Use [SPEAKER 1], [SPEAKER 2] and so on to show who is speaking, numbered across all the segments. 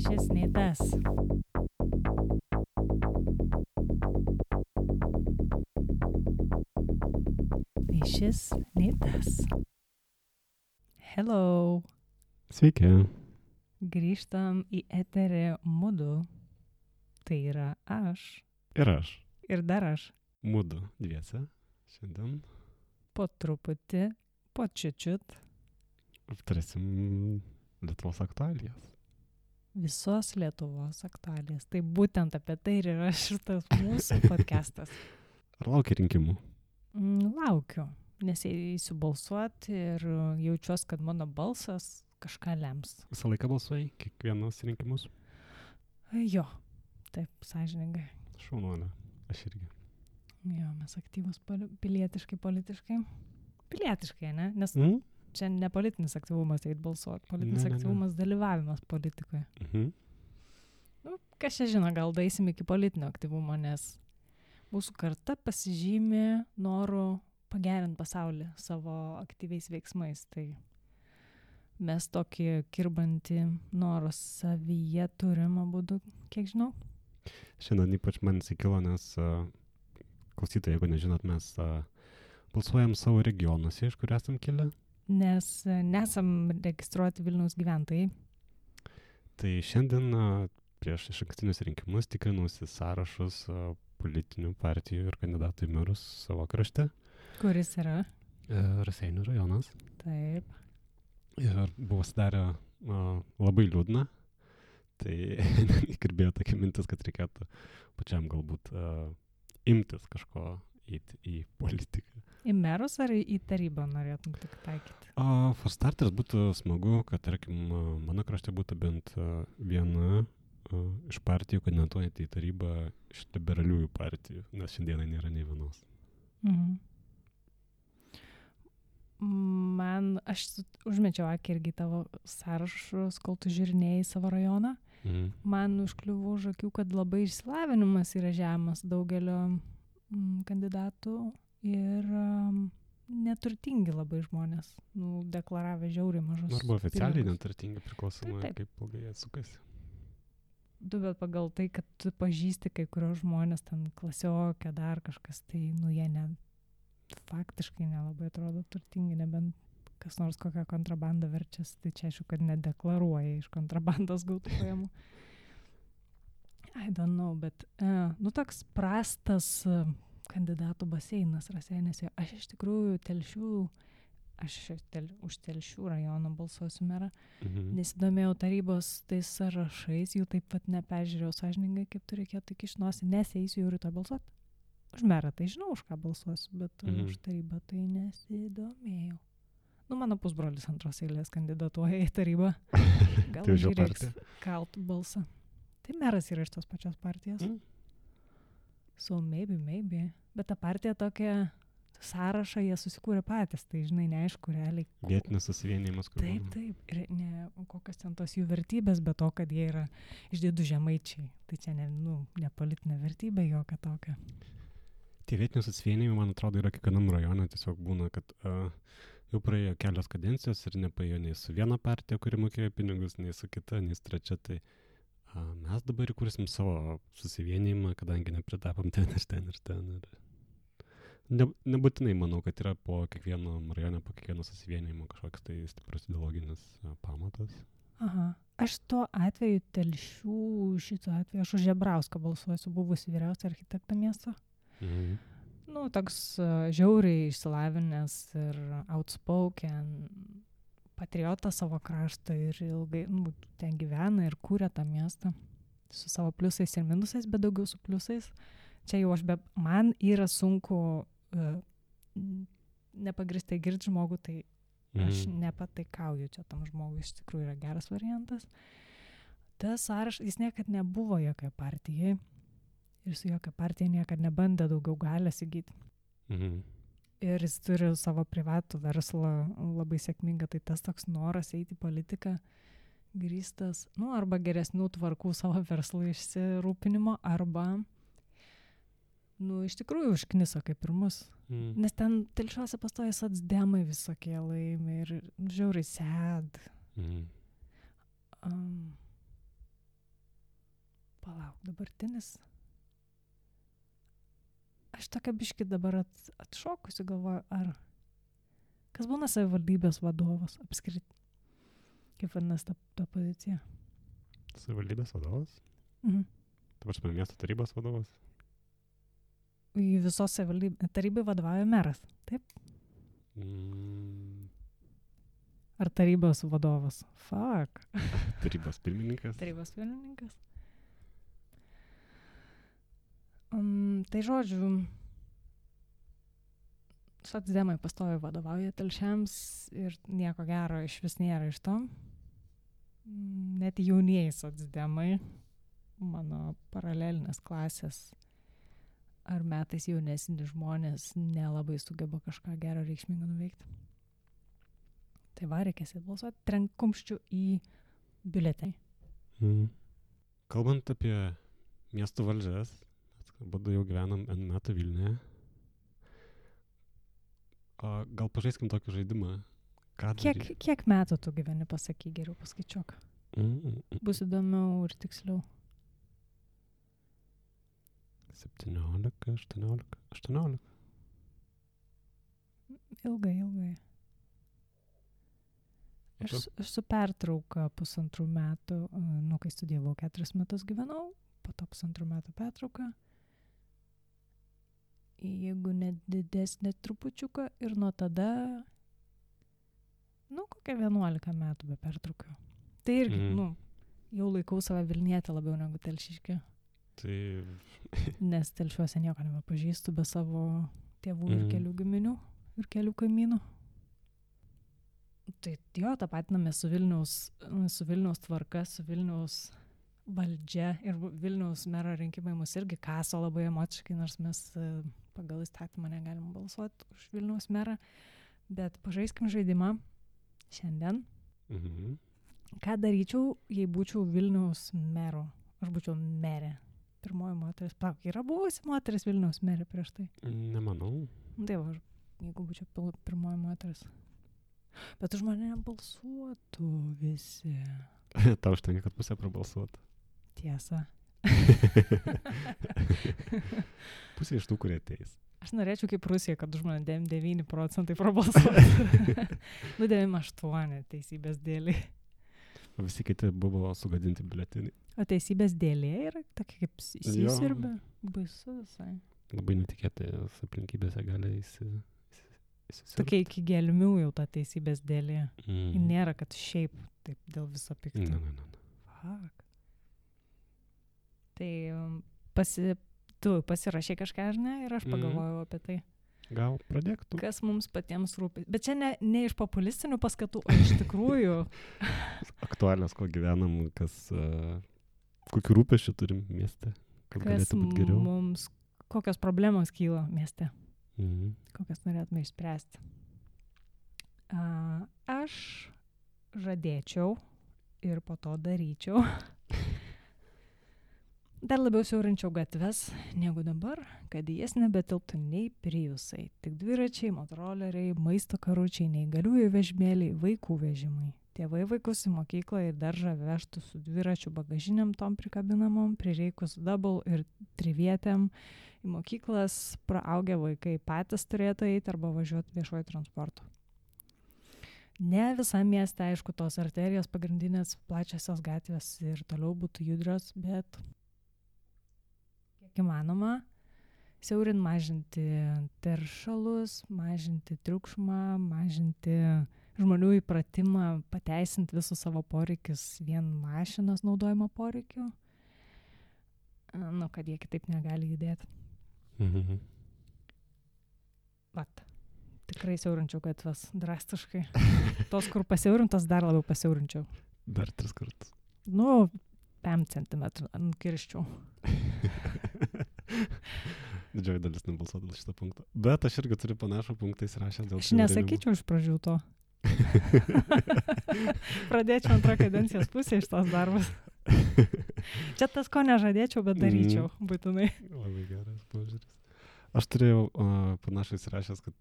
[SPEAKER 1] šis nei tas. Nei šis, nei tas. Hello.
[SPEAKER 2] Sveiki.
[SPEAKER 1] Grįžtam į eterį mudu. Tai yra aš.
[SPEAKER 2] Ir aš.
[SPEAKER 1] Ir dar aš.
[SPEAKER 2] Mudu dviese. Šiandien
[SPEAKER 1] Po truputį, po čiučiut.
[SPEAKER 2] aptarsim Lietuvos aktualijas.
[SPEAKER 1] Visos Lietuvos aktualijas. Tai būtent apie tai ir yra šitas mūsų podcastas.
[SPEAKER 2] Ar laukia rinkimų?
[SPEAKER 1] Laukiu, nes eisiu balsuoti ir jaučiuosi, kad mano balsas kažką lems.
[SPEAKER 2] Visą laiką balsuoji? Kiekvienas rinkimus?
[SPEAKER 1] Jo, taip, sąžiningai.
[SPEAKER 2] Šaunuolė. Aš irgi.
[SPEAKER 1] Jo, mes aktyvus pilietiškai, politiškai. Pilietiškai, ne? Nes čia ne politinis aktyvumas eit balsuoti, politinis aktyvumas dalyvavimas politikoje. Kas čia žino, gal daisim iki politinio aktyvumo, nes mūsų karta pasižymė noru pagerinti pasaulį savo aktyviais veiksmais. Tai mes tokį kirbantį norą savyje turim abudu, kiek žinau.
[SPEAKER 2] Šiandien ypač man įsikilo, nes klausytojai, jeigu nežinot, mes balsuojam savo regionuose, iš kur esam kilę.
[SPEAKER 1] Nes nesam registruoti Vilniaus gyventojai. Tai
[SPEAKER 2] šiandien prieš išankstinius rinkimus tikrinusi sąrašus politinių partijų ir kandidatų į merus savo krašte.
[SPEAKER 1] Kuris yra?
[SPEAKER 2] Raseinių rajonas.
[SPEAKER 1] Taip.
[SPEAKER 2] Ir buvo sudarę labai liūdna. Tai įkirbėjo tokia mintis, kad reikėtų pačiam galbūt imtis kažko į politiką.
[SPEAKER 1] Į merus ar į tarybą norėtum tik taikyti?
[SPEAKER 2] For starters būtų smagu, kad, tarkim, mano krašte būtų bent viena iš partijų kandidatuojant į tarybą iš liberaliųjų partijų, nes šiandieną nėra nei vienos.
[SPEAKER 1] Aš užmečiau akį irgi tavo sąrašus, kol tu žiūrinėjai savo rajoną. Man užkliuvo už akių, kad labai išsilavinimas yra žemas daugelio kandidatų ir neturtingi labai žmonės, deklaravę žiauriai mažus.
[SPEAKER 2] Arba oficialiai neturtingi, priklausomai kaip ilgai jie sukasi.
[SPEAKER 1] Bet pagal tai, kad tu pažįsti kai kurios žmonės, ten klasiokė, dar kažkas, tai jie faktiškai nelabai atrodo turtingi, nebent kas nors kokią kontrabandą verčias, tai čia aišku, kad nedeklaruoja iš kontrabandos gautų pajamų. I don't know, bet toks prastas kandidatų baseinas Raseiniuose. Aš iš tikrųjų už Telšių rajoną balsuosiu merą. Nesidomėjau tarybos tais sąrašais, jų taip pat neperžiūrėjau sąžiningai, kaip tu reikėtų iki nosį, nes eisiu jau rytoj balsuoti. Už merą tai žinau, už ką balsuosiu, bet už tarybą tai nesidomėjau. Mano pusbrolis antros eilės kandidatuoja į tarybą. Gal reiks kalt balsą. Tai meras yra iš tos pačios partijos. So maybe. Bet ta partija tokia sąrašą jie susikūrė patys, tai žinai, neaišku realiai.
[SPEAKER 2] Vietinis susivienijimas.
[SPEAKER 1] Taip. Ir kokios ten tos jų vertybės, bet to, kad jie yra išdidų žemaičiai. Tai čia ne politinė vertybė, jokia tokia.
[SPEAKER 2] Tie vietinių susivienijimai, man atrodo, yra kiekvienam rajone. Tiesiog būna, kad jau praėjo kelios kadencijos ir nepaėjo nei su viena partija, kuri mokėjo pinigus, nei su kita, nei su trečia. Tai mes dabar įkursim savo susivienijimą, kadangi nepritapom ten. Nebūtinai manau, kad yra po kiekvieno rajone, po kiekvieno susivienijimo kažkoks tai stiprus ideologinis pamatas.
[SPEAKER 1] Aha. Aš tuo atveju šito atveju, aš už Žebrauską balsuosiu, buvusi vyriausia architekto miesto. Toks žiauriai išsilavinęs ir outspoken patriotas savo krašto ir ilgai ten gyvena ir kūrė tą miestą su savo pliusais ir minusais, bet daugiau su pliusais. Čia jau man yra sunku nepagristai girti žmogų, tai aš nepataikauju čia tam žmogui, iš tikrųjų yra geras variantas. Tas sąrašas, jis niekad nebuvo jokia partijai ir su jokia partija niekad nebandė daugiau galės įgyti. Ir jis turi savo privatų verslą labai sėkmingą, tai tas toks noras eiti į politiką grįstas, arba geresnių tvarkų savo verslų išsirūpinimo, arba iš tikrųjų užkniso kaip ir mus. Nes ten Telšiuose pastoja socdemai visokie laimi ir žiauriai sad. Palauk, dabartinis. Aš tokia biški dabar atšokusi galvoju, ar kas būna savivaldybės vadovas apskritai? Kaip vadinasi ta pozicija?
[SPEAKER 2] Savivaldybės vadovas?
[SPEAKER 1] Mhm.
[SPEAKER 2] Ta prasme, miesto tarybos vadovas?
[SPEAKER 1] Į visos tarybai vadovauja meras, taip? Ar tarybos vadovas? Fuck.
[SPEAKER 2] Tarybos pirmininkas?
[SPEAKER 1] Tarybos pirmininkas. Tai žodžiu, socdemai pastoviai vadovauja telšiams ir nieko gero iš vis nėra iš to. Net jaunieji socdemai, mano paralelinės klasės ar metais jaunesni žmonės nelabai sugeba kažką gero reikšmingo nuveikti. Tai va, reikės balsuoti, trenk kumščių į biuletenį.
[SPEAKER 2] Kalbant apie miestų valdžias, abudu jau gyvenam N metų Vilniuje. Gal pažaiskim tokį žaidimą?
[SPEAKER 1] Kiek metų tu gyveni, pasakyk, geriau paskaičiuok. Bus įdomiau ir tiksliau.
[SPEAKER 2] 17, 18.
[SPEAKER 1] Ilgai. Aš su pertrauka 1,5 metų, kai studijavau 4 metus gyvenau, po to 1,5 metų pertrauka. Jeigu net didesnė trupučiuką ir nuo tada, kokia 11 metų be pertraukio. Tai irgi, jau laikau save Vilnietę labiau negu telšiškė.
[SPEAKER 2] Tai...
[SPEAKER 1] Nes telšiuose nieko nebepažįstu be savo tėvų ir kelių giminių ir kelių kaimynų. Tai jo, tapatiname su Vilniaus tvarka, su Vilniaus valdžia ir Vilniaus mero rinkimai mus irgi kaso labai emociškai, nors mes pagal įstatymą negalim balsuoti už Vilniaus merą, bet pažaiskim žaidimą šiandien. Ką daryčiau, jei būčiau Vilniaus mero? Aš būčiau merė. Pirmoji moteris. Yra buvusi moteris Vilniaus merė prieš tai?
[SPEAKER 2] Nemanau.
[SPEAKER 1] Tai va, jeigu būčiau pirmoji moteris. Bet už mane balsuotų visi.
[SPEAKER 2] Tau užtenka, kad pusė prabalsuotų.
[SPEAKER 1] Tiesa.
[SPEAKER 2] Pusė iš tų, kurie ateis.
[SPEAKER 1] Aš norėčiau kaip Rusija, kad už mane 9% prabalsuotų. 98 teisybės dėliai.
[SPEAKER 2] O visi kiti buvo sugadinti biuleteniai.
[SPEAKER 1] O teisybės dėlė yra tokia kaip įsisirbė. Baisu visai.
[SPEAKER 2] Labai netikėtais aplinkybėse gali įsisirbti.
[SPEAKER 1] Tokia iki gelmių jau ta teisybės dėlė. Nėra, kad šiaip taip dėl viso pikto.
[SPEAKER 2] Ne.
[SPEAKER 1] Fuck. Tai tu pasirašė kažką, ar ne? Ir aš pagalvojau apie tai.
[SPEAKER 2] Gal pradėk tu.
[SPEAKER 1] Kas mums patiems rūpi. Bet čia ne iš populistinių paskatų, o iš tikrųjų.
[SPEAKER 2] Aktualios, ko gyvenam, kokių rūpesčių turim mieste, kad galėtų būti geriau.
[SPEAKER 1] Mums, kokios problemos kyla mieste. Kokias norėtume išspręsti. Aš žadėčiau ir po to daryčiau. Dar labiau siaurinčiau gatves negu dabar, kad į jas nebetilptų nei priusai, tik dviračiai, motoroleriai, maisto karučiai, neįgaliųjų vežimėliai, vaikų vežimai. Tėvai vaikus į mokyklą ir daržą vežtų su dviračių bagažiniam tom prikabinamom, prireikus double ir trivietėm. Į mokyklas praaugę vaikai patys turėtų eiti arba važiuoti viešuoju transportu. Ne visam mieste, aišku, tos arterijos pagrindinės plačiosios gatvės ir toliau būtų judrios, bet kiek įmanoma, siaurint mažinti teršalus, mažinti triukšmą, mažinti žmonių įpratimą, pateisinti visus savo poreikius vien mašinos naudojimo poreikiu, kad jie kitaip negali judėti. Vat, tikrai siaurinčiau gatves drastiškai. Tos, kur pasiaurintos, dar labiau pasiaurinčiau.
[SPEAKER 2] Dar 3 kartus.
[SPEAKER 1] 5 centimetrų nukirščiau.
[SPEAKER 2] Didžioji dalis nebalsuotų dėl šito punkto. Bet aš irgi turiu panašų punktą įsirašęs dėl...
[SPEAKER 1] Aš nesakyčiau iš pradžių to. Pradėčiau antrą kadencijos pusę iš tos darbus. Čia tas, ko nežadėčiau, bet daryčiau būtinai.
[SPEAKER 2] Labai geras požiūris. Aš turėjau panašai įsirašęs, kad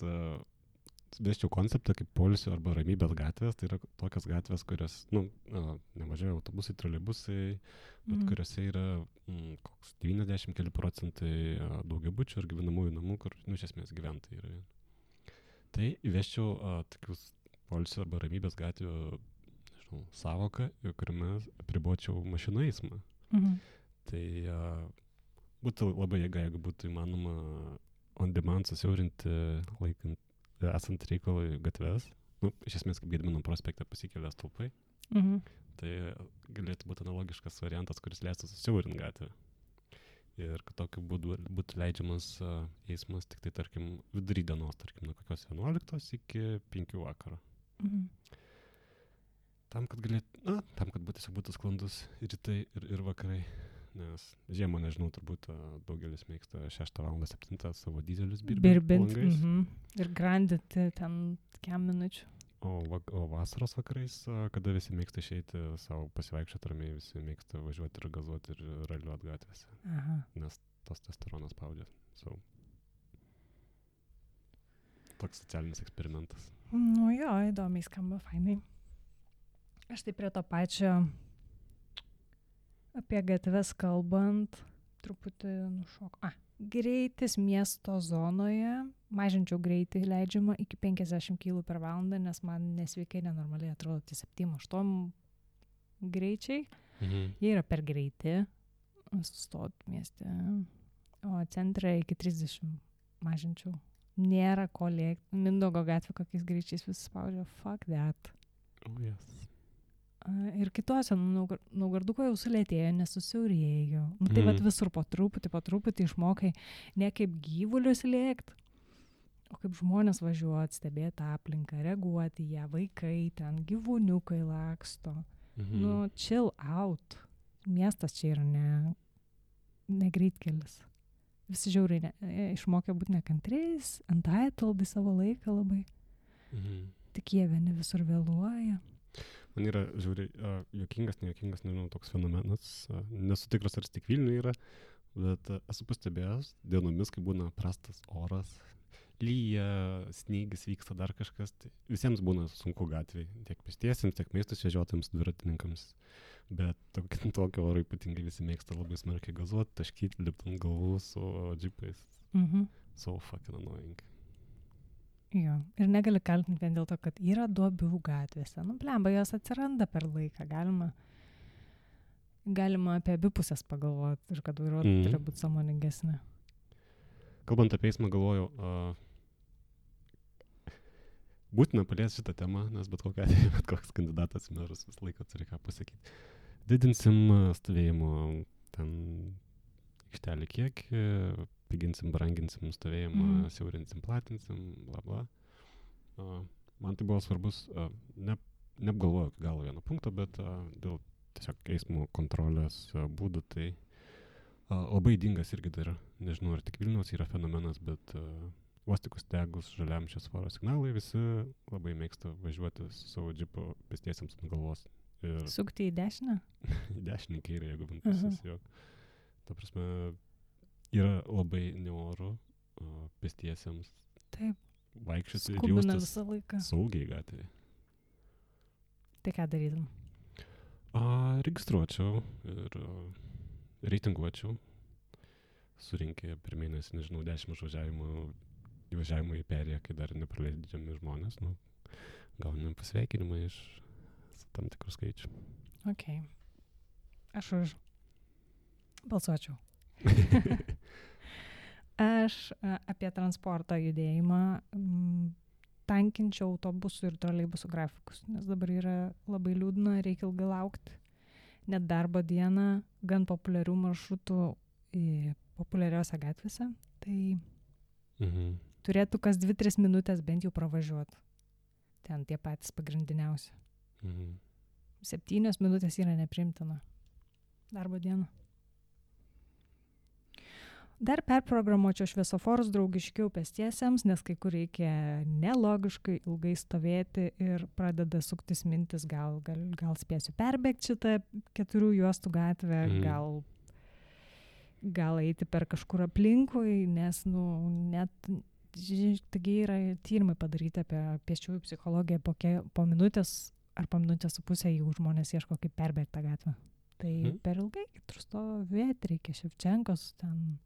[SPEAKER 2] vesčiau konceptą kaip poilsio arba ramybės gatvės, tai yra tokias gatvės, kurios, nemažai autobusai, troleibusai, bet kuriuose yra koks 90 keli procentai daugiabučių ir gyvenamųjų namų, kur, iš esmės gyventojai yra. Tai įvesčiau tokius poilsio arba ramybės gatvių, nežinau, savoką, kuriame apribočiau mašinų eismą. Tai būtų labai jėga, jeigu būtų įmanoma on demand susiaurinti laikant esant reikalui gatves, iš esmės kaip Gedimino prospekte pasikelia stulpai, tai galėtų būti analogiškas variantas, kuris leistų susiaurinti gatvę. Ir kad tokiu būdu būtų leidžiamas eismas tik tai, tarkim, vidury dienos, tarkim, nuo kokios 11 iki 5 vakaro. Tam, kad būtų sklandus rytai ir vakarai. Nes žiemą, nežinau, turbūt daugelis mėgsta 6 val. 7 savo dizelius
[SPEAKER 1] birbint. Ir grandinti ten kiam minučių.
[SPEAKER 2] O vasaros vakarais, kada visi mėgsta išeiti savo pasivaikščioti ramiai, visi mėgsta važiuoti ir gazuoti ir raliuoti gatvėse. Nes tos testosteronas spaudžia. Toks socialinis eksperimentas.
[SPEAKER 1] Jo, įdomiai skamba, fainai. Aš tai prie to pačio apie gatves kalbant, truputį nušok. Greitis miesto zonoje, mažinčiau greitį leidžiamą iki 50 km per valandą, nes man nesveikai nenormaliai atrodo 7-8 greičiai. Jie yra per greiti, sustot mieste, o centre iki 30 mažinčiau. Nėra ko lėkti. Mindaugo gatvė kokiais greičiais visi spaudžia. Fuck that.
[SPEAKER 2] Oh, yes.
[SPEAKER 1] Ir kitose, Naugarduko jau sulėtėjo, nesusiaurėjo. Tai vat visur po truputį išmokai ne kaip gyvulius lėkti, o kaip žmonės važiuoti, stebėti aplinką, reaguoti į ją, vaikai ten, gyvūniukai laksto. Chill out. Miestas čia yra ne greitkelis. Visi žiauriai išmokė būti nekantriais, entitled į savo laiką labai. Tik jie vieni visur vėluoja.
[SPEAKER 2] Man yra žiauriai juokingas, nejuokingas, nežinau, toks fenomenas. Nesu tikras, ar tik Vilniuje yra, bet esu pastebėjęs dienomis, kai būna prastas oras, lyja, snygis vyksta, dar kažkas. Tai visiems būna sunku gatvėje, tiek pėstiesiems, tiek maistus vežiotams, dviratininkams. Bet tokio oro ypatingai visi mėgsta labai smarkiai gazuoti, taškyti, lipti ant galvų su džipais. So fucking annoying.
[SPEAKER 1] Jo, ir negali kaltinti vien dėl to, kad yra duobių gatvėse. Blemba, jos atsiranda per laiką. Galima apie abi pusės pagalvoti ir kad vairuotojai turi būti sąmoningesni.
[SPEAKER 2] Kalbant apie eismą, galvoju, būtina paliesti šitą temą, nes bet koks kandidatas į merus visą laiką turi ką pasakyti. Didinsim stovėjimo ten aikštelį kiekį, piginsim, branginsim stovėjimą, siaurinsim, platinsim, bla bla. Man tai buvo svarbus, neapgalvojau iki galo vieno punkto, bet dėl tiesiog eismo kontrolės būdų, tai labai ydingas irgi dar, nežinau, ar tik Vilniaus yra fenomenas, bet vos tik uždegus žaliam šviesoforo signalai, visi labai mėgsta važiuoti su savo džipu pėstiesiems ant galvos.
[SPEAKER 1] Sukti į dešinę?
[SPEAKER 2] Į dešinę kairę, jeigu bent pusės jo. Ta prasme, yra labai neoru pėstiesiems vaikščioti ir jaustis saugiai gatvėje.
[SPEAKER 1] Tai ką darytum?
[SPEAKER 2] Registruočiau ir reitinguočiau. Surinkė per mėnesį, nežinau, 10 įvažiavimų į perėją, kai dar nepraleidžiami žmonės. Gaunam pasveikinimą iš tam tikrų skaičių.
[SPEAKER 1] Ok. Aš už balsuočiau. Aš apie transporto judėjimą tankinčiau autobusų ir troleibusų grafikus, nes dabar yra labai liūdna, reikia ilgai laukti. Net darbo dieną gan populiarių maršrutų populiariose gatvėse, tai turėtų kas 2-3 minutės bent jau pravažiuoti. Ten tie patys pagrindiniausi. 7 minutės yra nepriimtina darbo dieną. Dar perprogramuočiau šviesoforus draugiškiau pėstiesiems, nes kai kur reikia nelogiškai ilgai stovėti ir pradeda suktis mintis, gal spėsiu perbėgti šitą 4 juostų gatvę, gal eiti per kažkur aplinkui, nes net taigi yra tyrimai padaryti apie pėsčiųjų psichologiją po minutės ar po minutės su pusę, jeigu žmonės ieško kaip perbėgti tą gatvę. Tai per ilgai stovėti reikia. Ševčenkos ten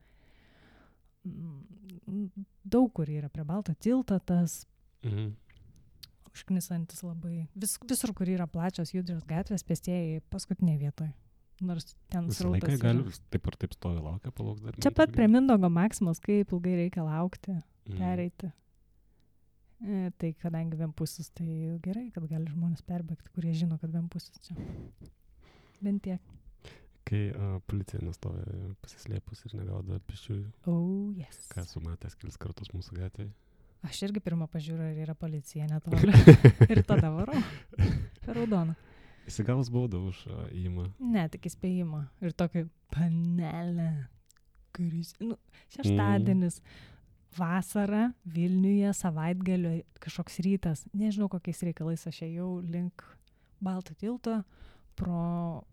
[SPEAKER 1] daug kur yra prie Balto tilto tas užknisantis labai. Visur, kur yra plačios judrios gatvės, pėstieji paskutinėje vietoje. Nors ten
[SPEAKER 2] visą laiką gali taip ar taip stovi laukia, palauks dar.
[SPEAKER 1] Čia pat prie Mindaugo Maksimos, kaip ilgai reikia laukti, pereiti. Tai kadangi vienpusis, tai gerai, kad gali žmonės perbėgti, kurie žino, kad vienpusis čia. Bent tiek.
[SPEAKER 2] Kai policija nestovi pasislėpus ir negaudo pėsčiųjų.
[SPEAKER 1] Oh, yes.
[SPEAKER 2] Ką esu matęs kelis kartus mūsų gatvėje.
[SPEAKER 1] Aš irgi pirmą pažiūrą, ar yra policija netoli. Ir tada varau. Per raudoną.
[SPEAKER 2] Įsigavus baudą už įėjimą.
[SPEAKER 1] Ne, tik įspėjimą. Ir tokį panelę, kuris... šeštadienis, vasara, Vilniuje, savaitgalio, kažkoks rytas. Nežinau, kokiais reikalais aš ėjau link Balto tilto pro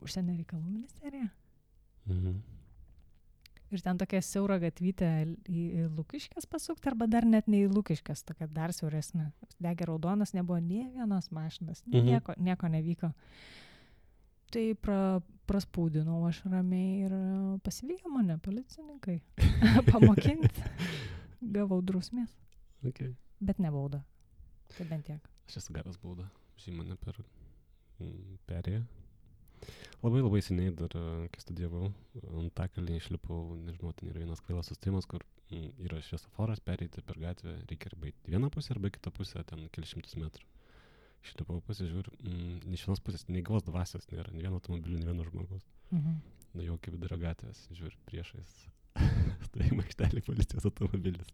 [SPEAKER 1] Užsienio reikalų ministeriją. Ir ten tokia siaura gatvytė į Lukiškes pasukti, arba dar net ne į Lukiškes, tokia dar siauresnė. Degė raudonas, nebuvo nė vienos mašinas, nieko nevyko. Tai praspūdinau aš ramiai ir pasivijo mane policininkai pamokinti. Gavau drausmės.
[SPEAKER 2] Okay.
[SPEAKER 1] Bet ne baudą. Tai bent tiek.
[SPEAKER 2] Aš esu gavęs baudą. Žinai mane per perėją. Labai seniai dar, kai studijavau, Antakalnyje išlipau, nežinau, ten yra vienas kvailas sustojimas, kur yra šviesoforas, pereiti per gatvę, reikia arba į vieną pusę, arba į kitą pusę, ten kelius šimtus metrų. Išlipau, pasižiūriu, iš vienos pusės nei gyvos dvasios nėra, nei vieno automobilio, nei vieno žmogaus. Nuėjau iki vidurio gatvės, žiūriu, priešais stovėjimo aikštelėje policijos automobilis.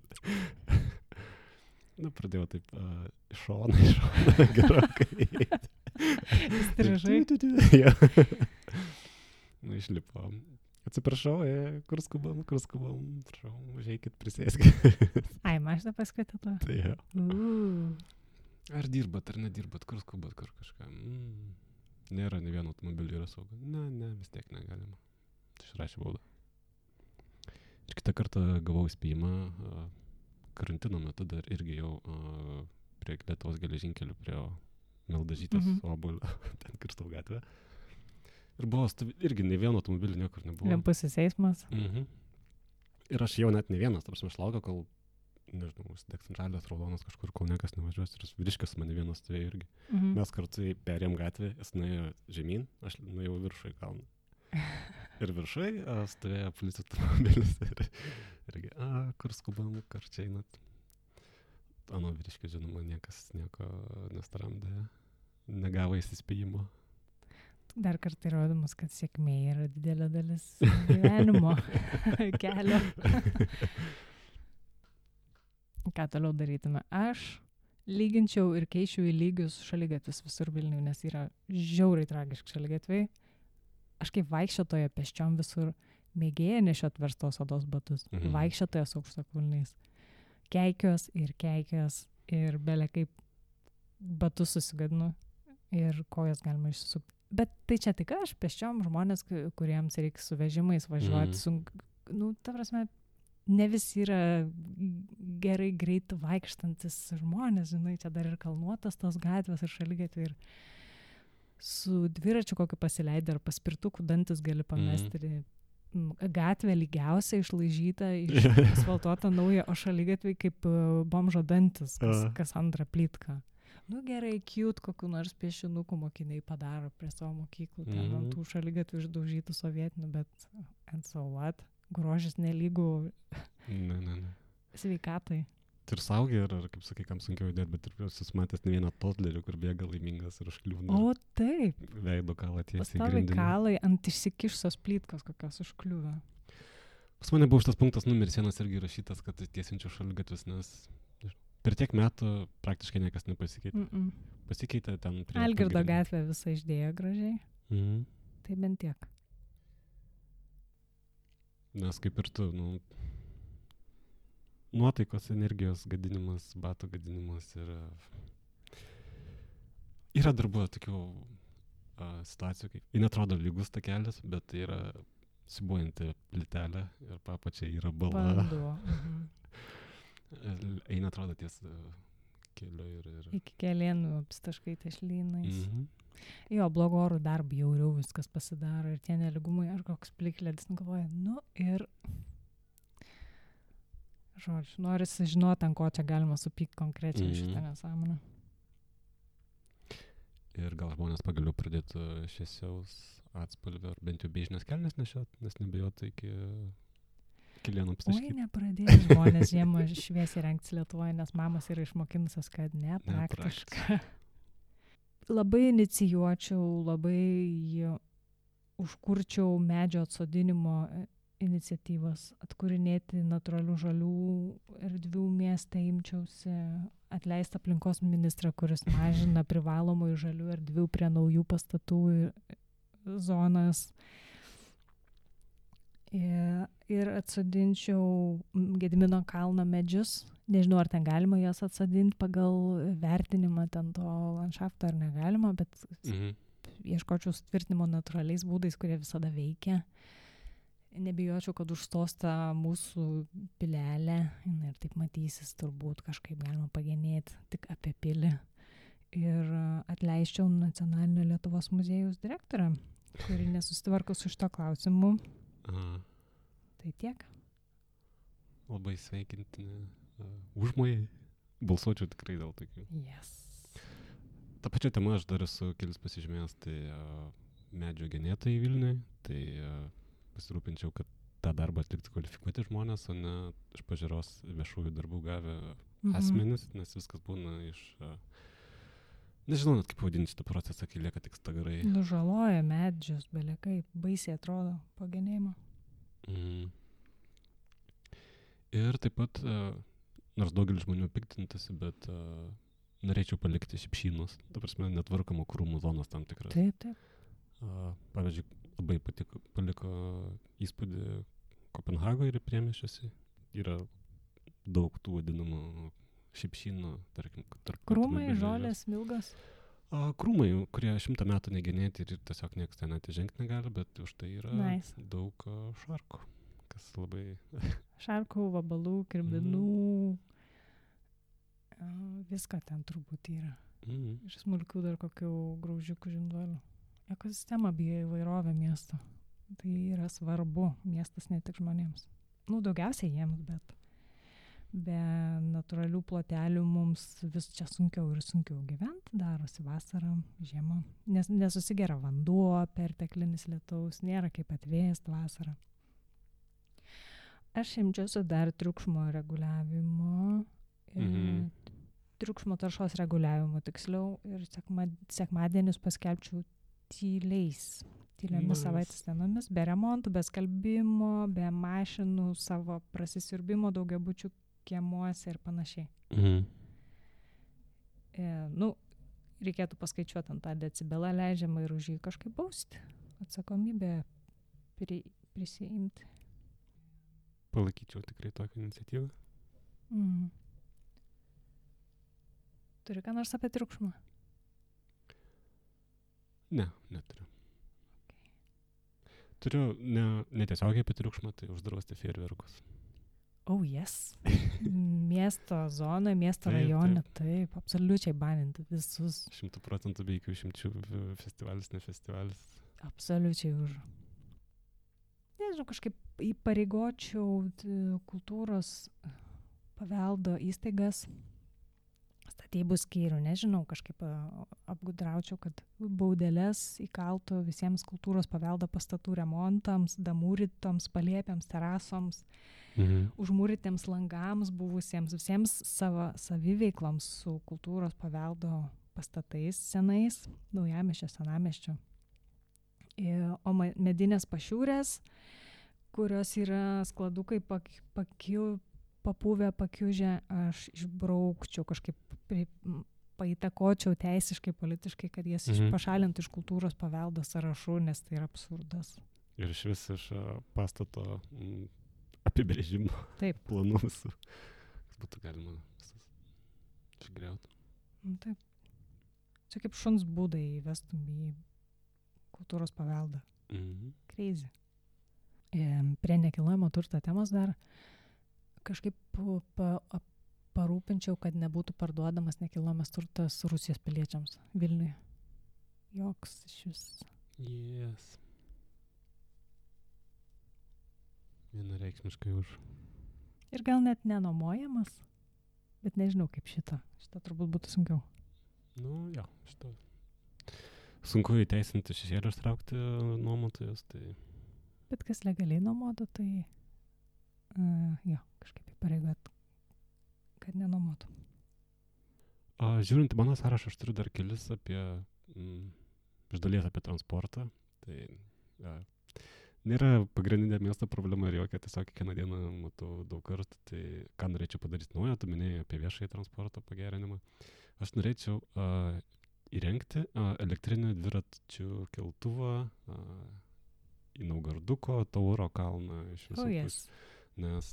[SPEAKER 2] Pradėjau taip iš šono gerokai.
[SPEAKER 1] Įstrižai.
[SPEAKER 2] Išlipo. Atsiprašau, kur skubam, prašau, užeikit, prisėskit.
[SPEAKER 1] Ai, mašiną paskutė to.
[SPEAKER 2] Tai jo. Ar dirbat, ar nedirbat, kur skubat, kur kažką. Nėra, ne vieno automobilio yra saugu. Ne, vis tiek negalima. Tai išrašė baudą. Ir kitą kartą gavau įspėjimą, karantino metu dar irgi jau prie Lietuvos geležinkelių, prie Mildažytės obuolio, ten kirstau gatvę. Ir buvo irgi ne vieno automobilio niekur nebuvo.
[SPEAKER 1] Vienpusis eismas.
[SPEAKER 2] Ir aš jau net ne vienas, tarsi aš laukiau, kol, nežinau, užsidegs žalias, raudonas kažkur, kol niekas nevažiuos. Ir vyriškis mane vienas stovėjo irgi. Mes kartu perėjom gatvę, jis nuėjo žemyn, aš nuėjau viršų į kalną. Ir viršai stovėjo policijos automobilis. Irgi, kur skubam, kur čia einat. Ano vyriškis, žinoma, niekas nieko nestaramdė, negavo įsispėjimo.
[SPEAKER 1] Dar kartą įrodymus, kad sėkmė yra didelė dalis gyvenimo kelio. Ką toliau darytume? Aš lyginčiau ir keičiau į lygius šaligatvius visur Vilniuje, nes yra žiauriai tragiški šaligatviai. Aš kaip vaikščiotoja pėsčiom visur mėgėja nešiot verstos odos batus, vaikščiotoja su aukštakulniais. Keikios ir belė kaip batus susigadinu ir kojas galima išsisukti. Bet tai čia tik aš, pėsčiom žmonės, kuriems reikia su vežimais važiuoti. Ta prasme, ne visi yra gerai greit vaikštantis žmonės, žinai, čia dar ir kalnuotas tos gatvės ir šaligatviai. Ir su dviračiu kokį pasileidai ar paspirtukų dantis gali pamesti. Gatvė lygiausia išlaižyta, asfaltuota nauja, o šaligatviai kaip bomžo dantis, kas antrą plytką. Gerai, cute, kokiu nors piešinukų mokiniai padaro prie savo mokyklų, ten ant tų šaligatvių išdaužytų sovietinių, bet and so what? Grožis nelygų sveikatai.
[SPEAKER 2] Ir saugiai, ar kaip sakai, kam sunkiau judėti, bet ir esu matęs ne vieną totlerį, kur bėga laimingas ir užkliūna.
[SPEAKER 1] O taip.
[SPEAKER 2] Veido kalą tiesiai
[SPEAKER 1] grindinį. Pastovi kalai ant išsikišusios plytkos kokios užkliūva.
[SPEAKER 2] Pas mane buvo šitas punktas numeris 1 irgi rašytas, kad tiesinčiau šaligatvius, nes per tiek metų praktiškai niekas nepasikeitė. Pasikeitė ten prie...
[SPEAKER 1] Algirdo gatvė visą išdėjo gražiai. Tai bent tiek.
[SPEAKER 2] Nes kaip ir tu, nuotaikos, energijos gadinimas, batų gadinimas ir yra dar buvo tokių situacijų, kai ji netrodo lygus takelis, bet tai yra sibuojanti plytelė ir papačiai yra bala. Eina, atrodo, ties keliu ir...
[SPEAKER 1] Iki Kelėnų apstaškai tešlynais.
[SPEAKER 2] Mhm.
[SPEAKER 1] Jo, blogo oro dar bjauriau viskas pasidaro ir tie neligumai, ar koks plikledis, galvoja, ir, žodžiu, norisi žinoti, ant ko čia galima supykti konkrečiai šitą nesąmonę.
[SPEAKER 2] Ir gal žmonės pagaliau pradėtų šviesiaus atspalvio, ar bent jau beižinės kelnes nešiot, nes nebijotų iki Kelėnų apstaškyti.
[SPEAKER 1] Oi, nepradėjo žmonės žiemą šviesiai rengtis Lietuvoje, nes mamos yra išmokinusios, kad nepraktiška. Labai inicijuočiau, labai užkurčiau medžio atsodinimo iniciatyvas, atkūrinėti natūralių žalių erdvių mieste, imčiausi atleisti aplinkos ministrą, kuris mažina privalomų žalių erdvių prie naujų pastatų zonas. Ir atsodinčiau Gedimino kalno medžius. Nežinau, ar ten galima juos atsodinti pagal vertinimą ten to landšafto ar negalima, bet ieškočiau sutvirtinimo natūraliais būdais, kurie visada veikia. Nebijočiau, kad užstos ta mūsų pilelė ir taip matysis turbūt kažkaip galima pagenėti tik apie pilį. Ir atleisčiau Nacionalinio Lietuvos muziejaus direktorę, kuri nesusitvarko su šito klausimu. Tai tiek.
[SPEAKER 2] Labai sveikintini užmojai. Balsuočiau tikrai dėl tokių.
[SPEAKER 1] Yes.
[SPEAKER 2] Ta pačia tema aš dar esu kelis pasižymėjęs, tai medžio genėtojai Vilniuje, tai pasirūpinčiau, kad tą darbą atlikti kvalifikuoti žmonės, o ne iš pažiūros viešųjų darbų gavę asmenis, nes viskas būna iš... Nežinau net kaip vadinti šitą procesą, kai lieka tik stagarai.
[SPEAKER 1] Nužaloja medžius, belekai, baisiai atrodo po genėjimo.
[SPEAKER 2] Ir taip pat, nors daugelis žmonių piktintasi, bet norėčiau palikti šipšynus, ta prasme, netvarkamų krūmų zonas tam tikras.
[SPEAKER 1] Taip.
[SPEAKER 2] Pavyzdžiui, labai paliko įspūdį Kopenhagoje ir priemiesčiuose. Yra daug tų vadinamų šipšynų, tarkim.
[SPEAKER 1] Krūmai, žolės, milgas?
[SPEAKER 2] Krūmai, kurie 100 metų negenėti ir tiesiog niekas ten atžengti negali, bet už tai yra daug šarkų, kas labai...
[SPEAKER 1] Šarkų, vabalų, kirbinų, viską ten turbūt yra. Ir smulkių dar kokių graužiukų žinduolių. Ekosistema bijo įvairovę miesto. Tai yra svarbu, miestas ne tik žmonėms. Daugiausiai jiems, bet be natūralių plotelių mums vis čia sunkiau ir sunkiau gyventi, darosi vasarą, žiemą, nes nesusigeria vanduo, perteklinis lietaus, nėra kaip atvėsti vasarą. Aš imčiausi dar triukšmo reguliavimo, triukšmo taršos reguliavimo tiksliau, ir sekmadienius paskelbčiau tyliomis savaitės dienomis, be remontų, be skalbimo, be mašinų, savo prasisiurbimo daugiabučių kiemuose ir panašiai. Reikėtų paskaičiuoti ant tą decibelą leidžiamą ir už jį kažkaip bausti. Atsakomybę prisiimti.
[SPEAKER 2] Palaikyčiau tikrai tokią iniciatyvą.
[SPEAKER 1] Turi ką nors apie triukšmą?
[SPEAKER 2] Ne, neturiu. Okay. Turiu netiesiogiai apie triukšmą, tai uždrausti fejerverkus.
[SPEAKER 1] Oh, yes. Miesto zonoje, miesto rajone, taip, absoliučiai baninti visus.
[SPEAKER 2] 100% be jokių išimčių, festivalis, ne festivalis.
[SPEAKER 1] Absoliučiai už. Nežinau, kažkaip įpareigočiau kultūros paveldo įstaigas, statybų skyrių, nežinau, kažkaip apgudraučiau, kad baudeles įkaltų visiems kultūros paveldo pastatų remontams, damūrytoms, palėpėms, terasoms, užmūrytiems langams buvusiems, visiems savo saviveikloms su kultūros paveldo pastatais senais, naujamiesčio, senamiesčio. O medinės pašiūrės, kurios yra skladukai papuvę, pakiužę, aš išbraukčiau, kažkaip paįtakočiau teisiškai, politiškai, kad jas pašalintų iš kultūros paveldo sąrašų, nes tai yra absurdas.
[SPEAKER 2] Ir iš vis iš pastato apibrėžimo planų visų, kas būtų galima visas išgriauti.
[SPEAKER 1] Taip. Čia kaip šuns būdai įvestum į kultūros paveldą. Crazy. Prie nekilnojamo turto temos dar kažkaip parūpinčiau, kad nebūtų parduodamas nekilnojamas turtas Rusijos piliečiams Vilniuje. Joks iš vis.
[SPEAKER 2] Yes. Vienareikšmiškai už.
[SPEAKER 1] Ir gal net nenuomojamas, bet nežinau kaip šitą. Šitą turbūt būtų sunkiau.
[SPEAKER 2] Nu, jo, šitą. Sunku įteisinti šešėlį ištraukti nuomotojus, tai...
[SPEAKER 1] Bet kas legaliai nuomotų, tai jo, kažkaip įpareigot, kad nenuomotų.
[SPEAKER 2] Žiūrint į mano sąrašą, aš turiu dar kelis apie, iš dalies apie transportą. Tai nėra pagrindinė miesto problema ir jokia, tiesiog kiekvieną dieną matau daug kartų. Tai ką norėčiau padaryti naujo, tu minėjai apie viešąjį transporto pagerinimą. Aš norėčiau įrengti elektrinį dviračių keltuvą į Naugarduko, Tauro kalną iš visų
[SPEAKER 1] Yes.
[SPEAKER 2] Nes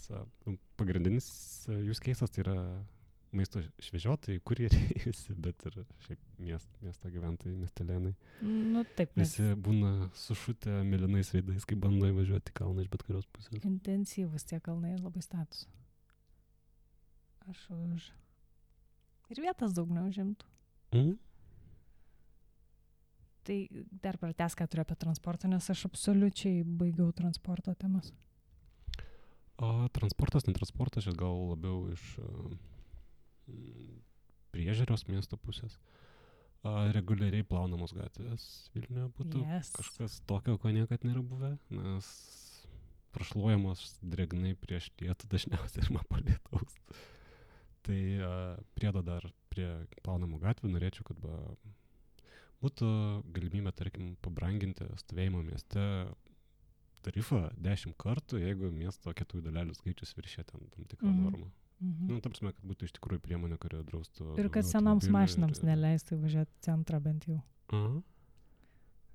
[SPEAKER 2] pagrindinis use case'as tai yra maisto švežiotojai, kurjeriai visi, bet ir šiaip miesto gyventojai, miestelėnai.
[SPEAKER 1] Nu taip, nes
[SPEAKER 2] Visi būna sušutę mėlynais veidais, kai bando įvažiuoti į kalną iš bet kurios pusės.
[SPEAKER 1] intensyvus tie kalnai ir labai status. Aš už. Ir vietas daug neužimtų. Tai dar pratęs, ką turiu apie transportą, nes aš absoliučiai baigiau transporto temas.
[SPEAKER 2] Transportas, netransportas, čia gal labiau iš priežiūros miesto pusės. Reguliariai plaunamos gatvės Vilniuje būtų kažkas tokio, ko niekad nėra buvę, nes prašluojamos dregnai prieš lietų dažniausiai ir po lietaus. Tai priedo dar prie plaunamų gatvių norėčiau, kad būtų galimybė, tarkim, pabranginti stovėjimo mieste tarifą 10 kartų, jeigu miesto kietųjų dalelių skaičius viršė tam tikrą normą. Nu, ta prasme, kad būtų iš tikrųjų priemonė, kurio draustų...
[SPEAKER 1] Ir kad senoms mašinams neleistų važiuoti centrą bent jau.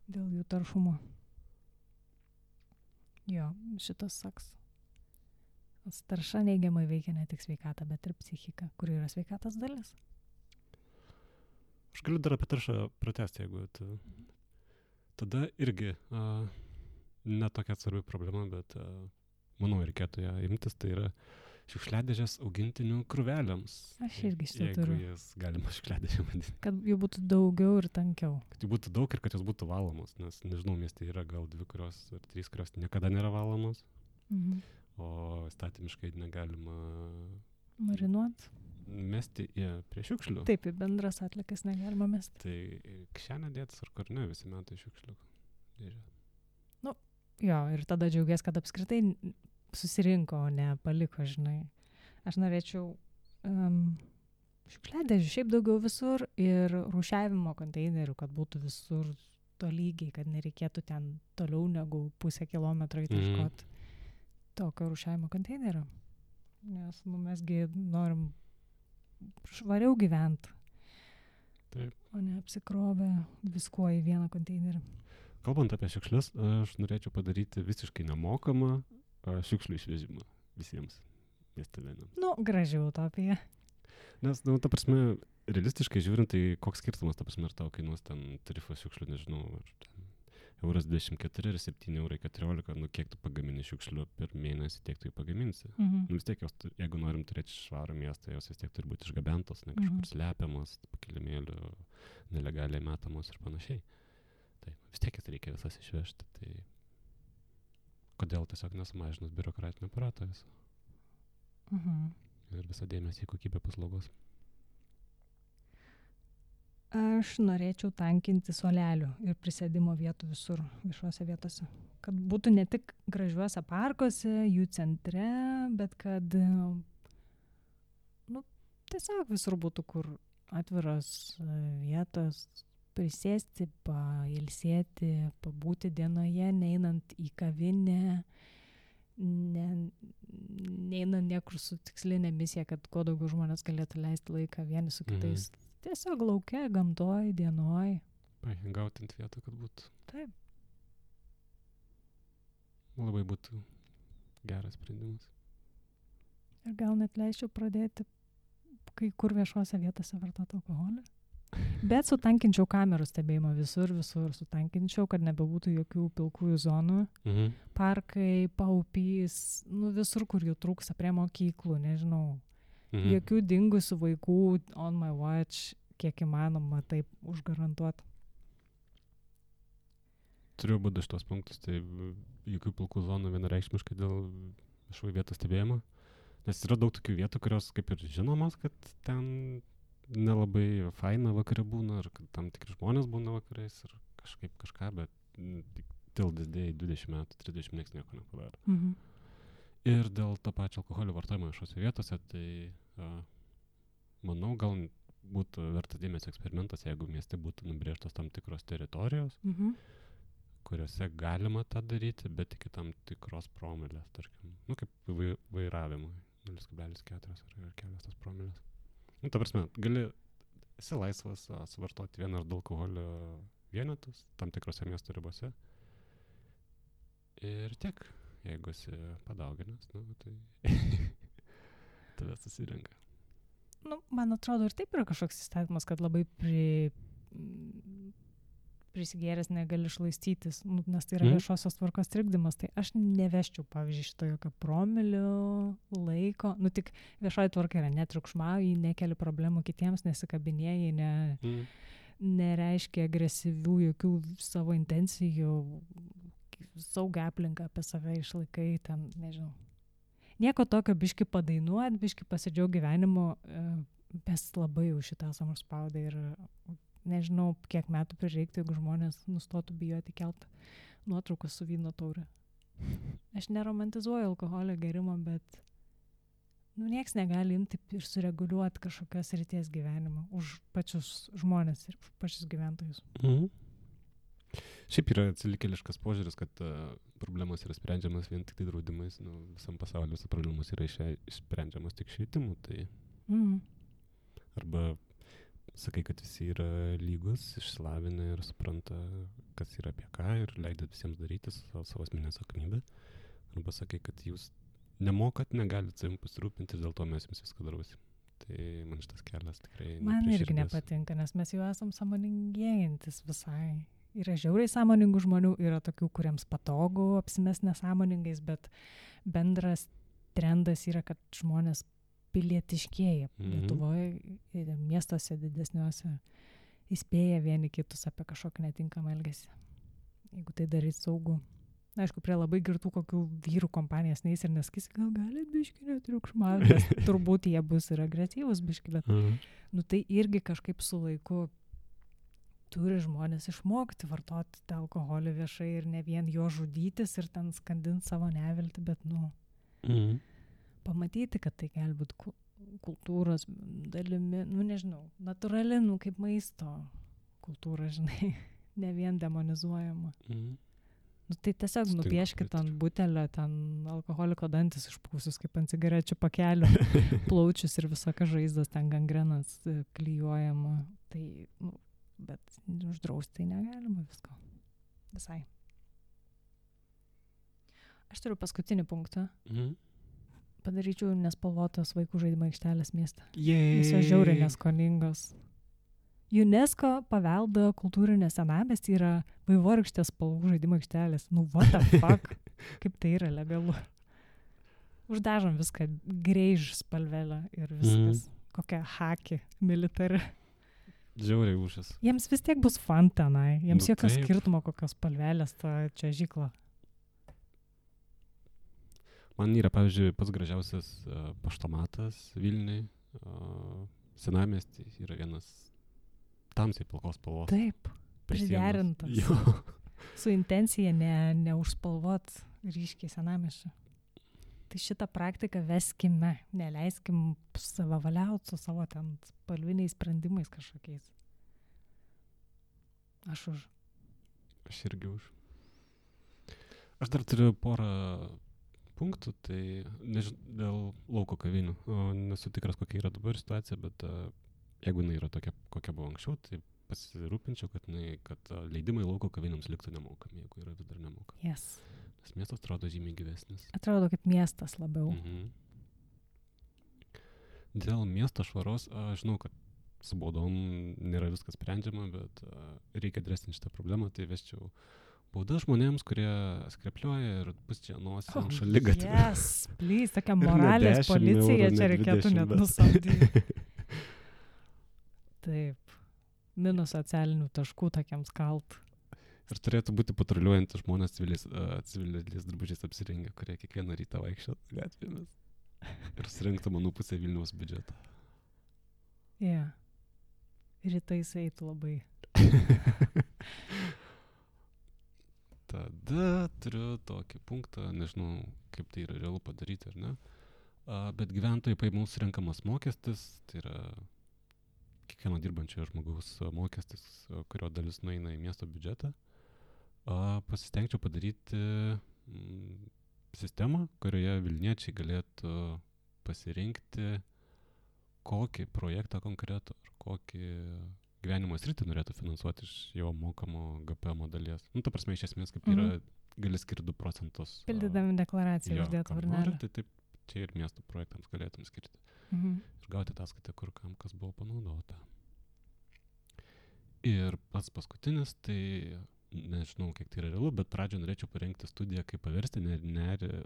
[SPEAKER 1] Dėl jų taršumo. Jo, šitas saks. Tarša neigiamai veikia ne tik sveikatą, bet ir psichiką, kur yra sveikatos dalis.
[SPEAKER 2] Aš galiu dar apie taršą pratęsti, jeigu tada irgi ne tokia svarbi problema, bet manau, reikėtų ją imtis, tai yra šiukšliadėžės augintinių krūvelėms.
[SPEAKER 1] Aš irgi šitą turiu.
[SPEAKER 2] Jeigu jas galima šiukšliadėžė vadinti.
[SPEAKER 1] Kad jų būtų daugiau ir tankiau.
[SPEAKER 2] Kad jų būtų daug ir kad jos būtų valomos, nes, nežinau, mieste yra gal 2 kurios ar 3, kurios niekada nėra valomos, o įstatymiškai negalima
[SPEAKER 1] marinuot.
[SPEAKER 2] Mesti prie šiukšlių.
[SPEAKER 1] Taip, į bendras atlikas negalima mesti.
[SPEAKER 2] Tai kišenę dėtis ar kur ne, visi metai šiukšlių dėžė.
[SPEAKER 1] Nu, jo, ir tada džiaugies, kad apskritai susirinko, o ne paliko, žinai. Aš norėčiau šiukšliadėžių šiaip daugiau visur ir rūšiavimo konteinerių, kad būtų visur tolygiai, kad nereikėtų ten toliau negu 0,5 kilometro įtaškot tokio rūšiavimo konteinerio. Nes mesgi norim švariau gyventi.
[SPEAKER 2] Taip.
[SPEAKER 1] O ne apsikrovę viskuo į vieną konteinerį.
[SPEAKER 2] Kalbant apie šiukšlius, aš norėčiau padaryti visiškai nemokamą šiukšlių išvežimą visiems miestelėnams.
[SPEAKER 1] Nu, graži utopija.
[SPEAKER 2] Nes, ta prasme, realistiškai žiūrint, tai koks skirtumas, ta prasme, ar tau kainuos ten tarifas šiukšlių, nežinau, ar ten €24 ir €7,14, nu kiek tu pagamini šiukšlių per mėnesį, tiek tu jį pagaminsi. Nu vis tiek, jos, jeigu norim turėti švarų miestą, jos vis tiek turi būti išgabentos, ne kažkur slepiamos, pakilimėlių, nelegaliai metamos ir panašiai. Tai vis tiek reikia visas išvežti, tai kodėl tiesiog nesumažinus biurokratinio aparato viso. Ir visą dėmesį į kokybę paslaugos.
[SPEAKER 1] Aš norėčiau tankinti suolelių ir prisėdimo vietų visur, viešuose vietose. Kad būtų ne tik gražiuose parkuose, jų centre, bet kad tiesiog visur būtų kur atviros vietos, prisėsti, pailsėti, pabūti dienoje, neinant į kavinę, neinant niekur su tikslinė misija, kad kuo daugiau žmonės galėtų leisti laiką vieni su kitais. Tiesiog lauke, gamtoj, dienoj.
[SPEAKER 2] Gauti ant vietą, kad būtų.
[SPEAKER 1] Taip.
[SPEAKER 2] Labai būtų geras sprendimas.
[SPEAKER 1] Ir gal net leisčiau pradėti kai kur viešuose vietose vartoti alkoholį. Bet sutankinčiau kamerų stebėjimą visur, sutankinčiau, kad nebebūtų jokių pilkųjų zonų. Parkai, paupys, visur, kur jų trūksta, prie mokyklų, nežinau. Jokių dingusių vaikų on my watch, kiek įmanoma taip užgarantuoti.
[SPEAKER 2] Turiu būti šitos punktus, tai jokių pilkų zonų vienareikšmiškai dėl viešųjų vietų stebėjimo. Nes yra daug tokių vietų, kurios kaip ir žinomas, kad ten nelabai faina vakare būna, ar kad tam tikri žmonės būna vakarais, ir kažkaip kažką, bet till this day 20 metų, 30 nieks nieko nepadaro. Ir dėl to pačio alkoholio vartojimo viešose vietose, tai manau, gal būtų vertas dėmesio eksperimentas, jeigu mieste būtų nubrėžtos tam tikros teritorijos, kuriuose galima tą daryti, bet iki tam tikros promilės, tarkim, kaip vairavimui, 0,4 ar kelios promilės. Ta prasme, esi laisvas suvartoti vieną ar du alkoholio vienetus tam tikrose miesto ribose. Ir tiek, jeigu esi padauginęs, tai tave susirenka.
[SPEAKER 1] Man atrodo, ir taip yra kažkoks įstatymas, kad labai prisigėręs negali šlaistytis, nes tai yra viešosios tvarkos trikdymas. Tai aš neveščiau, pavyzdžiui, šito jokio promilių laiko. Tik viešoji tvarka yra netriukšmauji, nekeli problemų kitiems, nesikabinėjai, nereiškia agresyvių jokių savo intencijų, saugią aplinką apie save išlaikai, ten, nežinau. Nieko tokio biški padainuot, biški pasidžiaug gyvenimu, mes labai jau šitą esam užspaudę ir nežinau, kiek metų prireiktų, jeigu žmonės nustotų bijoti kelt nuotraukas su vyno taure. Aš neromantizuoju alkoholio gerimo, bet nieks negali imti ir sureguliuoti kažkokios ryties gyvenimo už pačius žmonės ir už pačius gyventojus.
[SPEAKER 2] Šiaip yra atsilikėliškas požiūris, kad problemos yra sprendžiamas vien tik tai draudimais. Visam pasauliu visą problemos yra išsprendžiamas tik švietimu. Tai arba sakai, kad visi yra lygus, išsilavinę ir supranta, kas yra apie ką ir leidžiat visiems daryti savo asmeninę atsakomybę. Arba sakai, kad jūs nemokat, negalit savim pasirūpinti ir dėl to mes jums viską darosim. Tai man šitas kelias tikrai
[SPEAKER 1] man irgi nepatinka, nes mes jau esam sąmoningėjantis visai. Yra žiauriai sąmoningų žmonių, yra tokių, kuriems patogu apsimest nesąmoningais, bet bendras trendas yra, kad žmonės pilietiškėja. Lietuvoje ir miestuose didesniuose įspėja vieni kitus apie kažkokį netinkamą elgesį. Jeigu tai darys saugu. Aišku, prie labai girtų kokių vyrų kompanijas neis ir neskis, gal gali biški netriukšmauti, nes turbūt jie bus ir agresyvus biški, bet tai irgi kažkaip su laiku turi žmonės išmokti vartoti tą alkoholį viešai ir ne vien jo žudytis ir ten skandinti savo neviltį, bet pamatyti, kad tai gali būti kultūros dalimi, nežinau, natūrali, kaip maisto kultūra, žinai, ne vien demonizuojama. Tai tiesiog nupieškit ant butelio, ten alkoholiko dantis išpūsius, kaip ant cigarečių pakelio, plaučius ir visokias žaizdas, ten gangrenas klijuojama. Tai, bet uždrausti tai negalima visko. Visai. Aš turiu paskutinį punktą. Padaryčiau nespalvotos vaikų žaidimo aikštelės miestą. Jis yra žiauriai neskoningos. UNESCO paveldo kultūrinė senamiestį yra vaivorykštės spalvų žaidimo aikštelės. What the fuck? Kaip tai yra legalu? Uždažom viską greiž spalvelę ir viskas. Kokia haki militari.
[SPEAKER 2] Žiauriai užas.
[SPEAKER 1] Jiems vis tiek bus fun tenai. Jiems jokio skirtumo kokios spalvelės ta čia žykla.
[SPEAKER 2] Man yra, pavyzdžiui, pats gražiausias paštomatas Vilniui. Senamiestį yra vienas tamsiai pilkos spalvos.
[SPEAKER 1] Taip, priderintas. Su intencija neužspalvot ryškiai senamiesčio. Tai šitą praktiką veskime, neleiskim savavaliauti su savo ten spalviniais sprendimais kažkokiais. Aš už.
[SPEAKER 2] Aš irgi už. Aš dar turiu porą punktų, tai dėl lauko kavinių. Nesu tikras, kokia yra dabar situacija, bet jeigu jinai yra tokia, kokia buvo anksčiau, tai pasirūpinčiau, kad leidimai lauko kavinėms liktų nemokami, jeigu yra vis dar nemokami.
[SPEAKER 1] Yes.
[SPEAKER 2] Nes miestas atrodo žymiai gyvesnis.
[SPEAKER 1] Atrodo kaip miestas labiau.
[SPEAKER 2] Dėl miesto švaros, aš žinau, kad su baudom nėra viskas sprendžiama, bet reikia adresinti šitą problemą, tai vesčiau Bauda žmonėms, kurie skrepliuoja ir pusčia nosį ant šaligatvio.
[SPEAKER 1] Yes, please, tokia moralės policija čia reikėtų net nusamdyti. Taip. Minus socialinių taškų tokiems kalt.
[SPEAKER 2] Ir turėtų būti patruliuojantys žmonės civiliais drabužiais apsirengę, kurie kiekvieną rytą vaikščiotų gatvėmis. Ir surinktų manų pusę Vilniaus biudžeto.
[SPEAKER 1] Yeah. Rytais eitų labai.
[SPEAKER 2] Tada turiu tokį punktą, nežinau, kaip tai yra realu padaryti ar ne, bet gyventojų pajamų surenkamas mokestis, tai yra kiekvieno dirbančiojo žmogaus mokestis, kurio dalis nueina į miesto biudžetą, pasistengčiau padaryti sistemą, kurioje Vilniečiai galėtų pasirinkti, kokį projektą konkretų ar kokį gyvenimo sritį norėtų finansuoti iš jo mokamo GPM dalies. Nu, ta prasme, iš esmės, kaip yra, gali skirti 2%.
[SPEAKER 1] Pildydami deklaraciją uždėtų varnelę.
[SPEAKER 2] Tai taip, čia ir miesto projektams galėtum skirti. Ir gauti ataskaitą, kur kam kas buvo panaudota. Ir pats paskutinis, tai nežinau, kiek tai yra realu, bet pradžioje norėčiau parengti studiją, kaip paversti nerį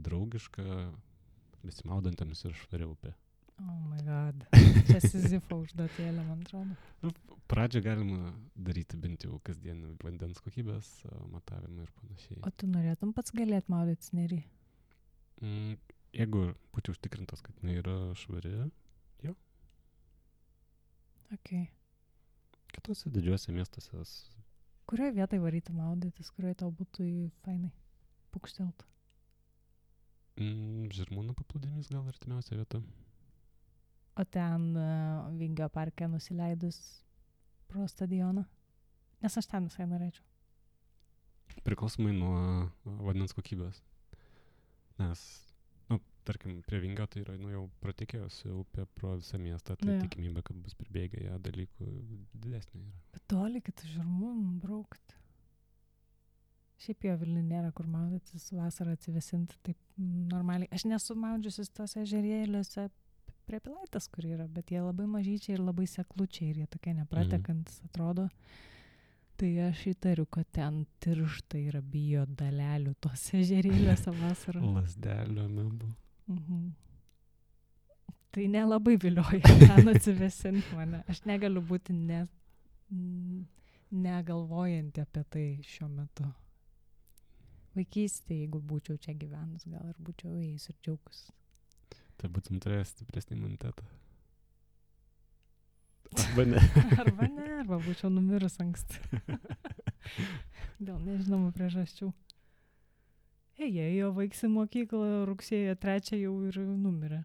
[SPEAKER 2] draugišką, besimaudantiems ir švaria upė.
[SPEAKER 1] Oh my god. Čia Sizifo užduotėlė, man atrodo.
[SPEAKER 2] Pradžią galima daryti bent jau kasdienį vandens kokybės matavimą ir panašiai.
[SPEAKER 1] O tu norėtum pats galėt maudytis nerį?
[SPEAKER 2] Jeigu būčiau užtikrintas, kad jinai yra švari, jo.
[SPEAKER 1] Ok.
[SPEAKER 2] Kitose didžiuose miestuose.
[SPEAKER 1] Kurioje vietoje varyti maudytis, kurioje tau būtų fainai pukštelt?
[SPEAKER 2] Žirmūnų paplūdimys gal artimiausia vieta.
[SPEAKER 1] O ten Vingio parke nusileidus pro stadioną? Nes aš ten visai norėčiau.
[SPEAKER 2] Priklausomai nuo vandens kokybės. Nes, tarkim, prie Vingio tai yra jau pratekėjusi upė pro visą miestą, tai tikimybė, kad bus pribėgę ją dalykų didesnė yra. Bet
[SPEAKER 1] toli, kad Žirmūnų braukti. Šiaip jo Vilniuje nėra kur maudytis, vasarą atsivesinti taip normaliai. Aš nesu maudžiusis tose ežerėliuose prie Pilaitės, kur yra, bet jie labai mažyčiai ir labai seklučiai ir jie tokie nepratekantis atrodo. Tai aš įtariu, kad ten tirštai yra bijo dalelių tose ežerėliuose vasarą.
[SPEAKER 2] Lasdelio mebu.
[SPEAKER 1] Tai nelabai vilioja ten atsivesinti mane. Aš negaliu būti negalvojanti apie tai šiuo metu. Vaikystėje, jeigu būčiau čia gyvenus, gal ir būčiau ėjus ir džiaugus.
[SPEAKER 2] Tai būtum turėjęs stipresnį imunitetą. Arba ne.
[SPEAKER 1] Arba būčiau numirus anksti. Dėl nežinomų priežasčių. Jie jo vaiksi mokyklą rugsėjo 3 jau ir numirė.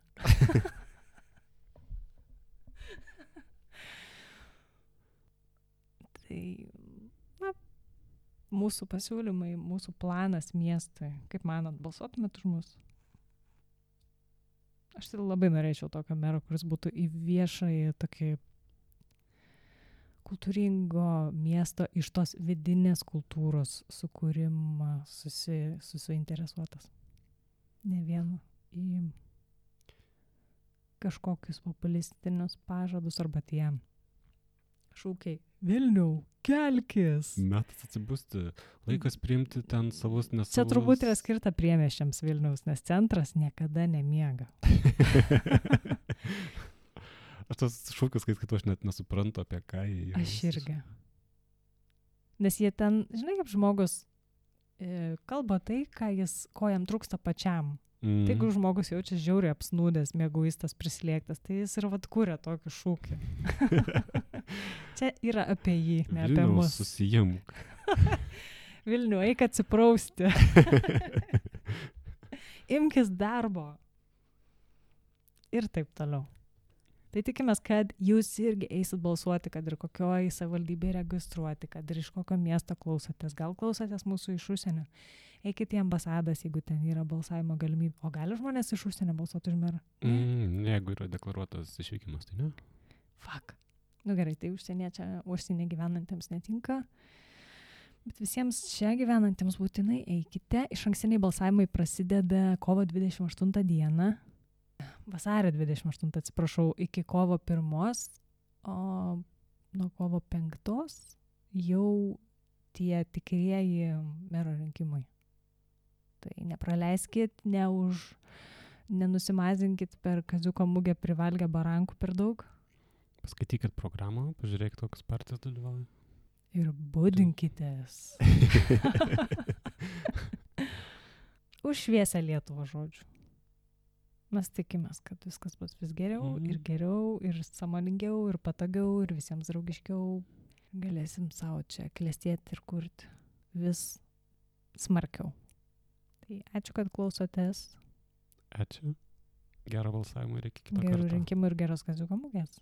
[SPEAKER 1] Tai, mūsų pasiūlymai, mūsų planas miestui. Kaip manot, balsuotumėt už mus? Aš tai labai norėčiau tokio mero, kuris būtų į viešąjį tokį kultūringo miesto iš tos vidinės kultūros sukūrimą susiinteresuotas. Ne vienu į kažkokius populistinius pažadus arba tie šūkiai. Vilniau, kelkis!
[SPEAKER 2] Metas atsibusti. Laikas priimti ten savus nesavus.
[SPEAKER 1] Čia turbūt yra skirta priemiesčiams Vilniaus, nes centras niekada nemiega.
[SPEAKER 2] Aš tas šūkius, kai aš net nesuprantu, apie ką jie.
[SPEAKER 1] Aš irgi. Nes jie ten, žinai, kaip žmogus kalba tai, ko jam trūksta pačiam. Tai jeigu žmogus jaučia žiauriai apsnūdęs, mieguistas, prislėgtas, tai jis ir kuria tokį šūkį. Čia yra apie jį, ne apie mus.
[SPEAKER 2] Susijimk.
[SPEAKER 1] Vilnių, eik atsiprausti. Imkis darbo. Ir taip toliau. Tai tikimės, kad jūs irgi eisit balsuoti, kad ir kokioj savivaldybėje registruoti, kad ir iš kokio miesto klausotės. Gal klausotės mūsų iš užsienio. Eikit į ambasadas, jeigu ten yra balsavimo galimybė. O gali žmonės iš užsienio balsuoti už merą?
[SPEAKER 2] Jeigu yra deklaruotas išvykimas, tai ne.
[SPEAKER 1] Fuck. Nu gerai, tai užsienė gyvenantiems netinka. Bet visiems čia gyvenantiems būtinai eikite. Išankstiniai balsavimai prasideda kovo 28 dieną. Vasario 28, atsiprašau, iki kovo 1, o nuo kovo 5 jau tie tikrieji mero rinkimai. Tai nepraleiskit, nenusimazinkit per Kaziuko mugę privalgę barankų per daug.
[SPEAKER 2] Paskaitykit programą, pažiūrėkit, kokios partijos dalyvauja.
[SPEAKER 1] Ir budinkitės. Už šviesą Lietuvą, žodžiu. Mes tikimės, kad viskas bus vis geriau ir geriau, ir sąmoningiau, ir patogiau, ir visiems draugiškiau. Galėsim savo čia klestėti ir kurti vis smarkiau. Tai ačiū, kad klausotės.
[SPEAKER 2] Ačiū. Gero balsavimo ir iki kito karto.
[SPEAKER 1] Gerų rinkimų ir geros Kaziuko mugės.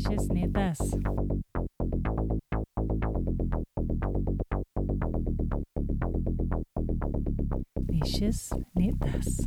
[SPEAKER 1] Šis nei tas. Nei šis, nei tas.